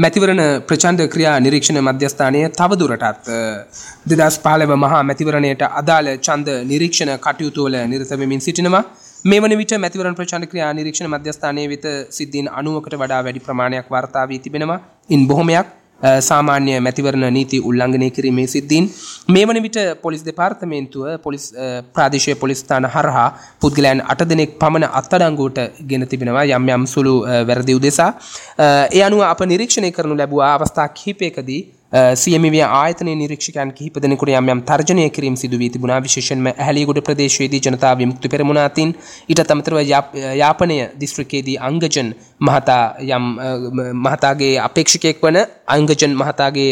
මැතිවරණ ප්‍රචණ්ඩ ක්‍රියා නිරීක්ෂණ මධ්‍යස්ථානය තවදුරටත් 2015 මහා මැතිවරණයට අදාළ ඡන්ද නිරීක්ෂණ කටයුතු වල නිරත වෙමින් සිටිනවා. මේ වන විට මැතිවරණ ප්‍රචණ්ඩ ක්‍රියා නිරීක්ෂණ මධ්‍යස්ථානයේ වෙත සිද්ධීන් 90කට වඩා වැඩි ප්‍රමාණයක් වාර්තා වී තිබෙනවා. ඉන් බොහොමයක් සාමාන්‍ය මැතිවරණ නීති උල්ලංඝනය කිරීමේ සිද්ධීන්. මේ වන විට පොලිස් දෙපාර්තමේන්තුව පොලිස් ප්‍රාදේශීය පොලිස් ස්ථාන හරහා පුද්ගලයන් 8 දෙනෙක් පමණ අත්අඩංගුවට ගෙන තිබෙනවා යම් යම් සුළු වැරදි උදෙසා. ඒ අනුව අප නිරීක්ෂණය කරනු ලැබුවා අවස්ථා කිහිපයකදී CMV ආයතනයේ නිරීක්ෂකයන් කිහිප දෙනෙකුට යම් යම් තර්ජනය කිරීම සිදු වී තිබුණා. විශේෂයෙන්ම ඇහැලියගොඩ ප්‍රදේශයේදී ජනතා විමුක්ති පෙරමුණ අතින්, ඊටත් අමතරව යාපනය දිස්ත්‍රික්කයේදී අංගජන් මහතා යම් මහතාගේ අපේක්ෂකයෙක් වන අංගජන් මහතාගේ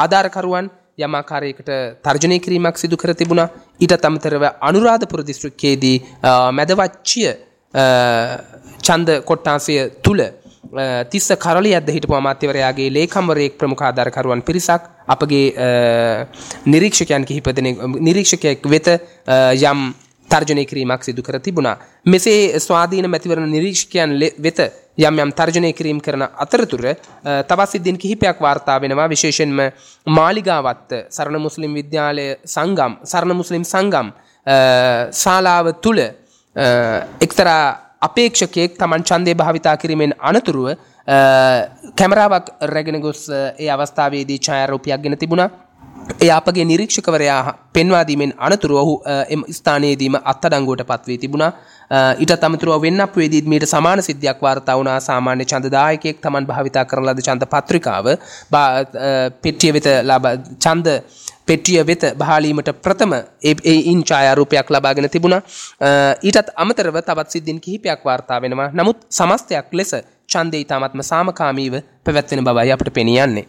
ආධාරකරුවන් යම් ආකාරයකට තර්ජනය කිරීමක් සිදු කර තිබුණා. ඊටත් අමතරව අනුරාධපුර දිස්ත්‍රික්කයේදී මැදවච්චිය ඡන්ද කොට්ටාසය තුල තිස්ස කරලියද්ද හිටපු අමාත්‍යවරයාගේ ලේකම්වරයෙක් ප්‍රමුඛ ආධාරකරුවන් පිරිසක් අපගේ නිරීක්ෂකයන් කිහිප දෙනෙක් නිරීක්ෂකයෙක් වෙත යම් තර්ජනය කිරීමක් සිදු කර තිබුණා. මෙසේ ස්වාධීන මැතිවරණ නිරීක්ෂකයන් වෙත යම් යම් තර්ජනය කිරීම කරන අතරතුර තවත් සිද්ධීන් කිහිපයක් වාර්තා වෙනවා. විශේෂයෙන්ම මාලිගාවත්ත සරණ මුස්ලිම් විද්‍යාලය සංගම් සරණ මුස්ලිම් සංගම් ශාලාව තුල එක්තරා අපේක්ෂකයෙක් තමන් ඡන්දය භාවිතා කිරීමෙන් අනතුරුව කැමරාවක් රැගෙන ගොස් ඒ අවස්ථාවේදී ඡායාරූපයක් ගෙන තිබුණා. ඒ අපගේ නිරීක්ෂකවරයා පෙන්වා දීමෙන් අනතුරුව ඔහු එම ස්ථානයේදීම අත්අඩංගුවට පත් වී තිබුණා. ඊටත් අමතරව වෙන්නප්පුවේදීත් මීට සමාන සිද්ධියක් වාර්තා වුණා. සාමාන්‍ය ඡන්දදායකයෙක් තමන් භාවිතා කරන ලද ඡන්ද පත්‍රිකාව පෙට්ටිය වෙත ඡන්ද පෙට්ටිය වෙත බහාලීමට ප්‍රථම ඒ ඉන් ඡායාරූපයක් ලබාගෙන තිබුණා. ඊටත් අමතරව තවත් සිද්ධීන් කිහිපයක් වාර්තා වෙනවා. නමුත් සමස්තයක් ලෙස ඡන්දය ඉතාමත්ම සාමකාමීව පැවැත්වෙන බවයි අපට පෙනී යන්නේ.